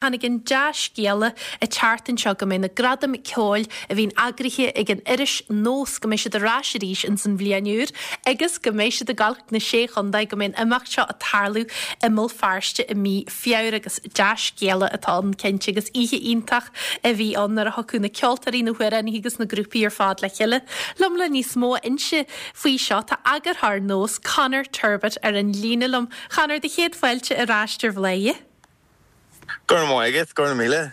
Tháinig an dea-scéala an tseachtain seo go mbeidh na Gradaim Ceoil a bhíonn eagraithe ag an iris Nós, go mbeidh siad ar ais arís ins an bhliain úr agus go mbeidh siad ag gabháil chuig na Sé Chontae, go mbeidh an imeacht seo ag tarlú i mBéal Feirste i mí Feabhra agus dea-scéala atá ann cinnte agus oíche iontach a bhí ann nuair a thiocfadh na ceoltóirí, na hamhránaithe agus na grúpaí ar fad le chéile. Liom le níos mó a inse faoi seo tá eagarthóir Nós, Conor Turbitt ar an líne liom. Conor, do chéad fáilte ar ais ar Bhladhaire. Go raibh maith agat, go raibh míle.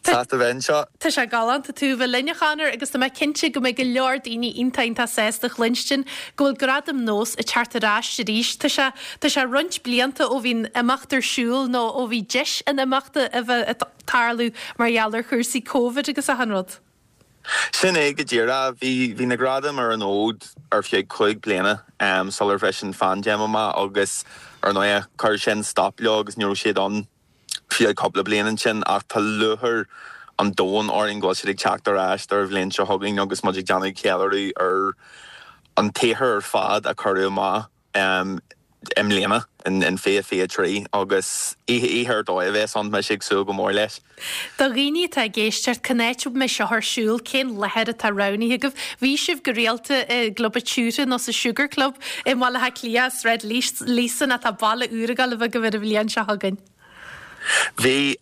Sásta bheith anseo. Tá sé galánta tú a bheith linn, a Chonor, agus tá mé cinnte go mbeidh go leor daoine iontach iontach sásta a chluinstin go bhfuil Gradaim Nós ag teacht ar ais arís. Tá sé, tá sé roinnt blianta ó bhí an imeacht ar siúl nó ó bhí deis an imeachta a bheith ag tarlú mar gheall ar chúrsaí Covid agus achan rud. Sin é go díreach. Bhí, bhí na gradaim ar an fhód ar feadh 5 bliana sular bhris an phaindéim amach agus ar ndóigh chuir sin stop leo agus ní raibh siad ann feadh cúpla bliain ansin ach tá lúcháir an domhain orainn go bhfuil siad ag teacht ar ais don bhliain seo chugainn agus muid ag déanamh ceiliúradh ar an tsaothar ar fad a cuireadh amach i mbliana, in 2023, agus oíche ar dóigh a bheas ann, mise ag súil go mór leis. Do dhaoine atá ag éisteacht, cá háit a mbeidh seo ar siúl, cén láthair atá roghnaithe agaibh? Bhí sibh go rialta i gClub an tSiúire nó sa Sugar Club i mBaile Átha Cliath, Sráid Líosain, ach tá baile úr ag dul a bheith agaibh ar an bhliain seo chugainn. Bhí,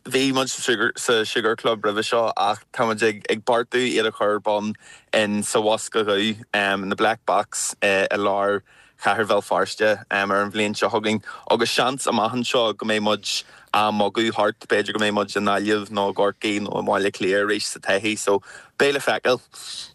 bhí muid sa Sugar Club roimhe seo ach tá muid ag beartú iad a chur ar bun in sa Bhosca Dhubh, in the Black Box i lár chathair Bhéal Feirste ar an bhliain seo chugainn agus seans amach anseo go mbeidh muid á mbogadh thart, b'fhéidir go mbeidh muid i nGaillimh nó i gCorcaigh nó i mBaile Átha Cliath arís sa todhchaí so beidh le feiceáil.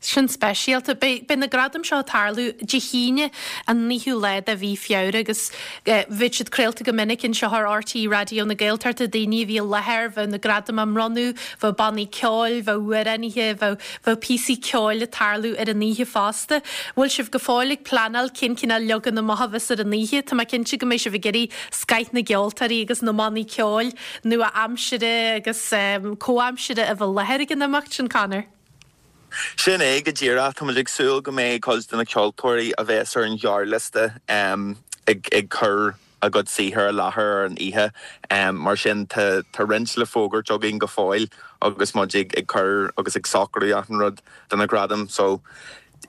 Sin speisialta. Beidh na gradaim seo ag tarlú Dé hAoine an 9ú lá de mhí Feabhra agus bheadh siad craolta go minic anseo ar RTÉ Raidió na Gaeltachta, daoine a bhí i láthair, bheadh na gradaim á mbronnadh, bheadh bannaí ceoil, bheadh amhránaithe, bheadh bheadh píosaí ceoil ag tarlú ar an oíche fosta. Bhfuil sibh go fóill ag pleanáil cén cineál leagan amach a bheas ar an oíche? Tá mé cinnte go mbeidh sibh ag iarraidh scoith na gceoltóirí agus na mbannaí ceoil nua-aimsire agus comhaimsire a bheith i láthair ag an imeacht sin, Conor. Sin é go díreach. Tá muid ag súil go mbeidh cuid de na ceoltóirí a bheas ar an ghearrliosta ag cur a gcuid saothair i láthair ar an oíche. Mar sin tá roinnt le fógairt againn go fóill agus muid ag cur agus ag socrú achan rud do na gradaim. So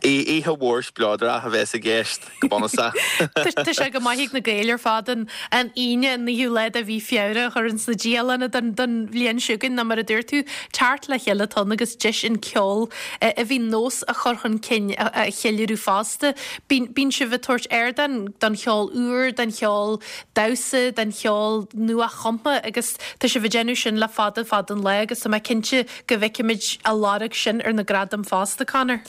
Oíche mhór spleodrach a bheas i gceist, go bunúsach. Tá sé go maith ag na Gaeil ar fad an Aoine, an 9ú lá de mhí Feabhra a chur ins na dialanna don bhliain seo chugainn nó mar a dúirt tú, teacht le chéile atá ann agus deis an ceol a bhí nós a chur chun cinn a cheiliúradh fosta. Bíonn sibh ag tabhairt ardán don cheol úr, don cheol damhsa, don cheol nua-chumtha agus tá sibh ag déanamh sin le fada fada an lá agus tá mé cinnte go bhfeicfimid a lorg sin ar na gradaim fosta, Conor.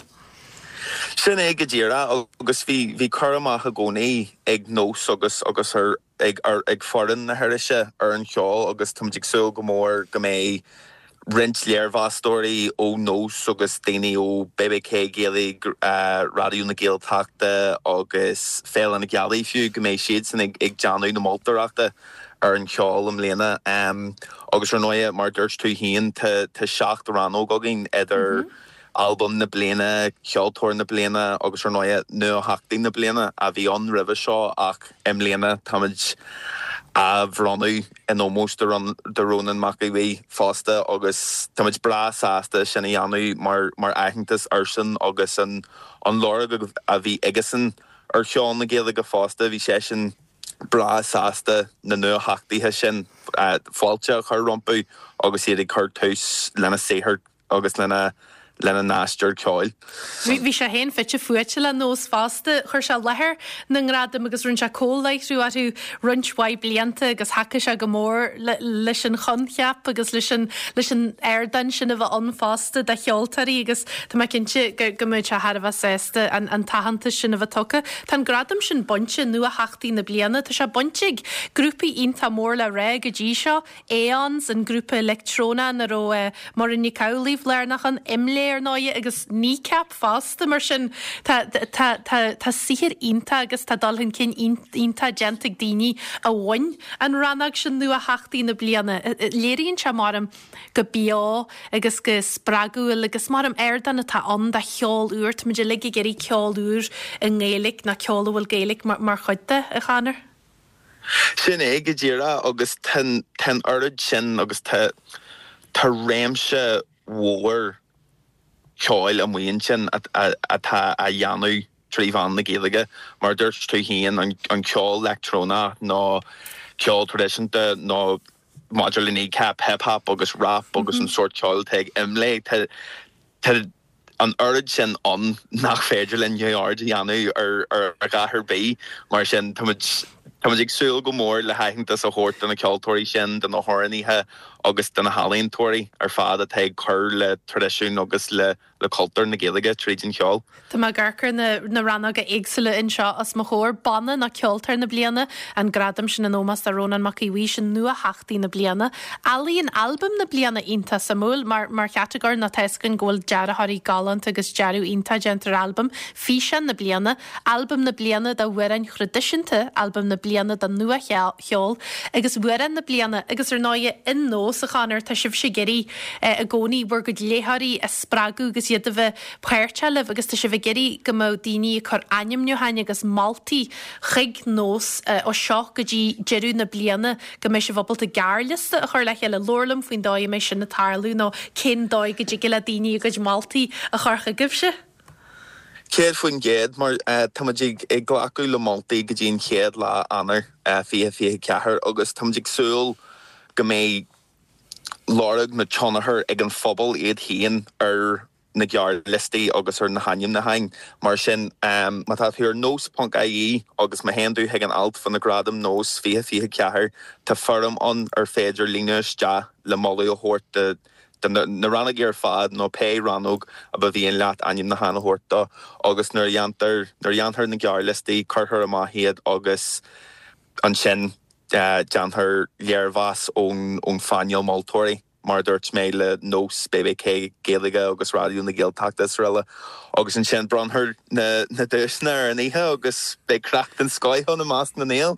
Sin é go díreach agus bhí bhí cur amach i gcónaí ag Nós agus agus ar ag ar ag foireann na hirise ar an cheol agus táimid ag súil go mór go mbeidh roinnt léirmheastóirí ó Nós agus daoine ó BBK Gaeilge, Raidió na Gaeltachta agus Féile na Gealaí fiú, go mbeidh siadsan ag ag déanamh na moltóireachta. ar an cheol i mbliana. Agus ar ndóighe, mar a dúirt tú féin, tá 7 rannóg againn idir Albam na Bliana, Ceoltóir na Bliana agus ar ndóighe Nuatheachtaí na Bliana a bhí ann roimhe seo ach i mbliana táimid á bhronnadh in ómós do Rónán Mac Aodha Bhuí fosta agus táimid breá sásta sin a dhéanamh mar aitheantas airsean agus an lorg a bhí aigesan ar cheol na Gaeilge fosta. Bhí seisean. breá sásta na nuatheachtaithe sin fáilte a chur rompu agus iad ag cur tús lena saothar agus lena lena n-aistear ceoil. Bhí sé féin fite fuaite le Nós fosta. Chuir sé i láthair na ngradaim agus rinne sé comhláithriú orthu roinnt mhaith blianta agus thacaigh sé go mór leis an choincheap agus leis an leis an ardán sin a bheith ann fosta do cheoltóirí agus tá mé cinnte go go mbeidh sé thar a bheith sásta an an t-aitheantas sin a bheith tugtha. Tá an gradam sin bainte, Nuatheachtaí na Bliana, tá sé bainte ag grúpaí iontach mór le rá go dtí seo, Aeons, an grúpa leictreonach ina raibh Muireann Nic Amhlaoibh lárnach ann, IMLÉ ar ndóighe agus Kneecap fosta. Mar sin tá tá tá tá saothar iontach agus tá dul chun cinn iontach déanta ag daoine a bhain an rannóg sin Nuatheachtaí na Bliana. Léiríonn sé, maram, go beo agus go spreagúil agus maram ardán atá ann do cheol úr. Táimid uilig ag iarraidh ceol úr i nGaeilge nó ceol a bhfuil Gaeilge mar chuid de, a Chonor. Sin é go díreach agus tá an oiread sin agus tá tá réimse mhór ceoil amuigh ansin atá á dhéanamh trí mheán na Gaeilge. Mar a dúirt tú féin, an ceol leictreonach nó ceol traidisiúnta nó maidir le Kneecap, hip hop agus rap agus an sórt ceoil atá ag Imlé, tá tá an oiread sin ann nach féidir linn neamhaird a dhéanamh ar a dhath ar bith. Mar sin, táimid táimid ag súil go mór le haitheantas a thabhairt do na ceoltóirí sin, do na hamhránaithe agus do na healaíontóirí ar fad atá ag cur le traidisiún agus le le cultúr na Gaeilge tríd an cheol. Tá mé ag amharc ar na rannóga éagsúla anseo os mo chomhair. Banna nó Ceoltóir na Bliana, an gradam sin in ómós do Rónán Mac Aodha Bhuí, sin Nuatheachtaí na Bliana. Ealaíon Albam na Bliana, iontach suimiúil mar mar chatagóir nó tá 'fhios againn go bhfuil dearthóirí galánta agus dearadh iontach déanta ar albam. Físeán na Bliana, Albam na Bliana d'Amhráin Thraidisiúnta, Albam na Bliana do Nuacheol agus Amhrán na Bliana agus ar ndóighe in Nós, a Chonor, tá sibhse ag iarraidh i gcónaí bhur gcuid léitheoirí a spreagadh agus iad a bheith páirteach libh agus tá sibh ag iarraidh go mbeadh daoine ag cur ainmniúcháin agus moltaí chuig Nós ó seo go dtí deireadh na bliana go mbeidh sibh ábalta gearrliosta a chur le chéile. Labhair liom faoin dóigh a mbeidh sin ag tarlú nó cén dóigh go dtig le daoine a gcuid moltaí a chur chugaibhse. 100% mar táimid ag glacadh le moltaí go dtí an chéad lá Eanáir 2024 agus táimid ag súil go mbeidh lorg nó tionchar ag an phobal iad féin ar na gearrliostaí agus ar na hainmniúcháin. Mar sin, má tá tú ar nós ponc ie agus má théann tú chuig an alt fá na Gradaim Nós 2024, tá foirm ann ar féidir líonadh isteach le moladh a thabhairt do do na rannógaí ar fad nó pé rannóg a ba mhian leat ainmniúchán a thabhairt dó agus nuair a dhéantar nuair a dhéanfar na gearrliostaí cuirfear amach iad agus ansin déanfar léirmheas ón ón phainéal moltóirí, mar a dúirt mé, le Nós, BBK Gaeilge agus Raidió na Gaeltachta is araile. Agus ansin bronnfar na duaiseanna ar an oíche agus beidh craic den scoith ann i measc na nGael.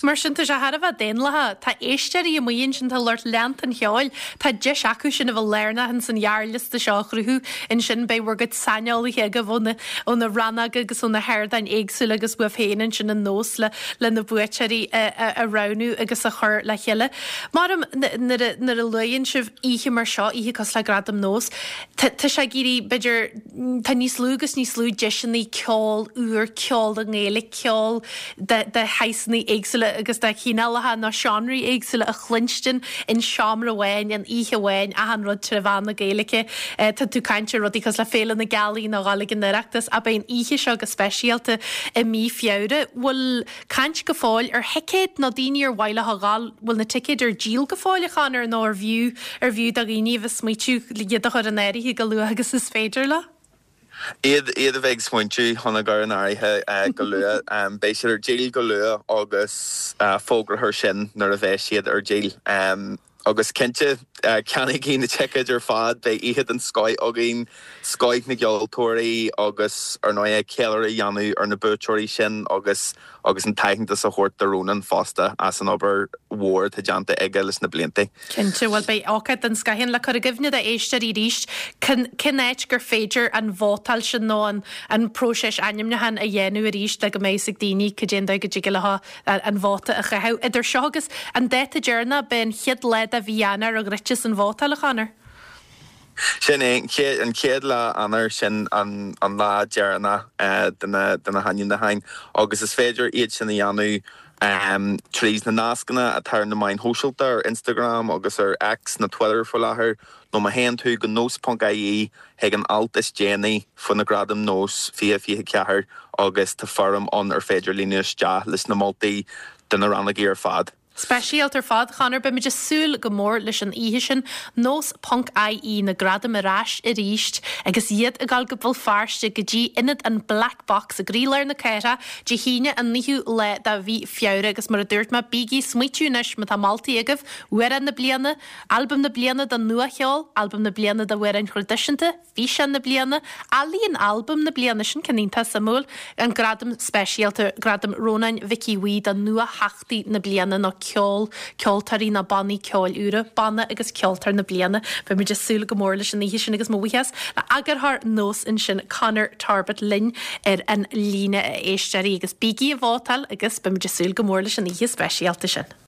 Mar sin, tá sé thar a bheith daonlathach. Tá éisteoirí amuigh ansin, tá lucht leanta an cheoil, tá deis acu sin a bheith lárnach ins an ghearrliosta seo a chruthú. Ansin beidh bhur gcuid saineolaithe agaibh ó na ó na rannóga agus ó na hardáin éagsúla agus uaibh féin ansin in Nós le le na buaiteoirí a roghnú agus a chur le chéile. Maram, nuair a nuair a luaigheann sibh oíche mar seo, oíche cosúil le Gradaim Nós, tá tá sé ag éirí, b'fhéidir, tá níos lú agus níos lú deiseanna ceol úr, ceol i nGaeilge, ceol de de shaghsanna éagsúla agus de chineálacha nó seánraí éagsúla a chluinstin in seomra amháin, in oíche amháin, achan rud tré mheán na Gaeilge. Tá tú ag caint ar rudaí cosúil le Féile na Gealaí nó dhul ag an Oireachtas, ach beidh an oíche seo go speisialta i mí Feabhra. Bhfuil caint go fóill ar thicéid nó daoine ar mhaith leo a dhul, bhfuil na ticéid ar díol go fóill, a Chonor, nó ar bhfiú, ar bhfiú do dhaoine a bheith ag smaoitiú iad a chur in áirithe go luath agus is féidir leo? Iad iad a bheith ag smaointiú chun a gcur in áirithe go luath. Beidh siad ar díol go luath agus fógrófar sin nuair a bheidh siad ar díol. Agus cinnte, ceannaígí na ticéid ar fad, beidh oíche den scoith againn, scoith na gceoltóirí agus, ar ndóigh, ceiliúradh a dhéanamh ar na buaiteoirí sin agus agus an t-aitheantas a thabhairt do Rónán fosta as an obair mhór atá déanta aige leis na blianta. Cinnte, bhuel beidh ócáid den scoith ann. Le cur i gcuimhne d'éisteoirí arís, cén áit gur féidir an vótáil sin nó an an próiseas ainmniúcháin a dhéanamh arís le go mbeidh fhios ag daoine cad é an dóigh go dtig leo an vóta a chaitheamh. Idir seo agus an dáta deireanach, b'é an chéad lá de mhí Eanáir a dhruidfeas an vótáil, a Chonor. Sin é, an chéad lá Eanáir, sin an lá deireanach de na hainmniúcháin agus is féidir iad sin a dhéanamh tríd na nascanna atá ar na meáin shóisialta, ar Instagram agus ar X, nó Twitter faoi láthair, nó má théann tú go nós.ie chuig an alt is déanaí faoi na Gradaim Nós 2024 agus tá foirm ann ar féidir líonadh isteach leis na moltaí do na rannógaí ar fad. Speisialta ar fad, Chonor. Beimid ag súil go mór leis an oíche sin. Nós ponc IE, na gradaim ar ais arís agus iad ag dul go Béal Feirste go dtí ionad an Black Box i gcroílár na cathrach Dé hAoine an 9ú lá de mhí Feabhra agus mar a dúirt mé, bígí ag smaoitiú anois má tá moltaí agaibh, Amhrán na Bliana, Albam na Bliana don Nua-Cheol, Albam na Bliana d'Amhráin Thraidisiúnta, Físeán na Bliana, Ealaíon Albam na Bliana, sin ceann iontach suimiúil, an Gradam Speisialta, Gradam Rónáin Mhic Aodha Bhuí do Nua-Theachtaí na Bliana nó. ceol, ceoltóirí nó bannaí ceoil úra, Banna agus Ceoltóir na Bliana. Beidh muid ag súil go mór leis an oíche sin agus mo bhuíochas le eagarthóir Nós ansin Conor Torbett linn ar an líne a éisteoirí agus bígí ag vótáil agus beidh muid ag súil go mór leis an oíche speisialta sin.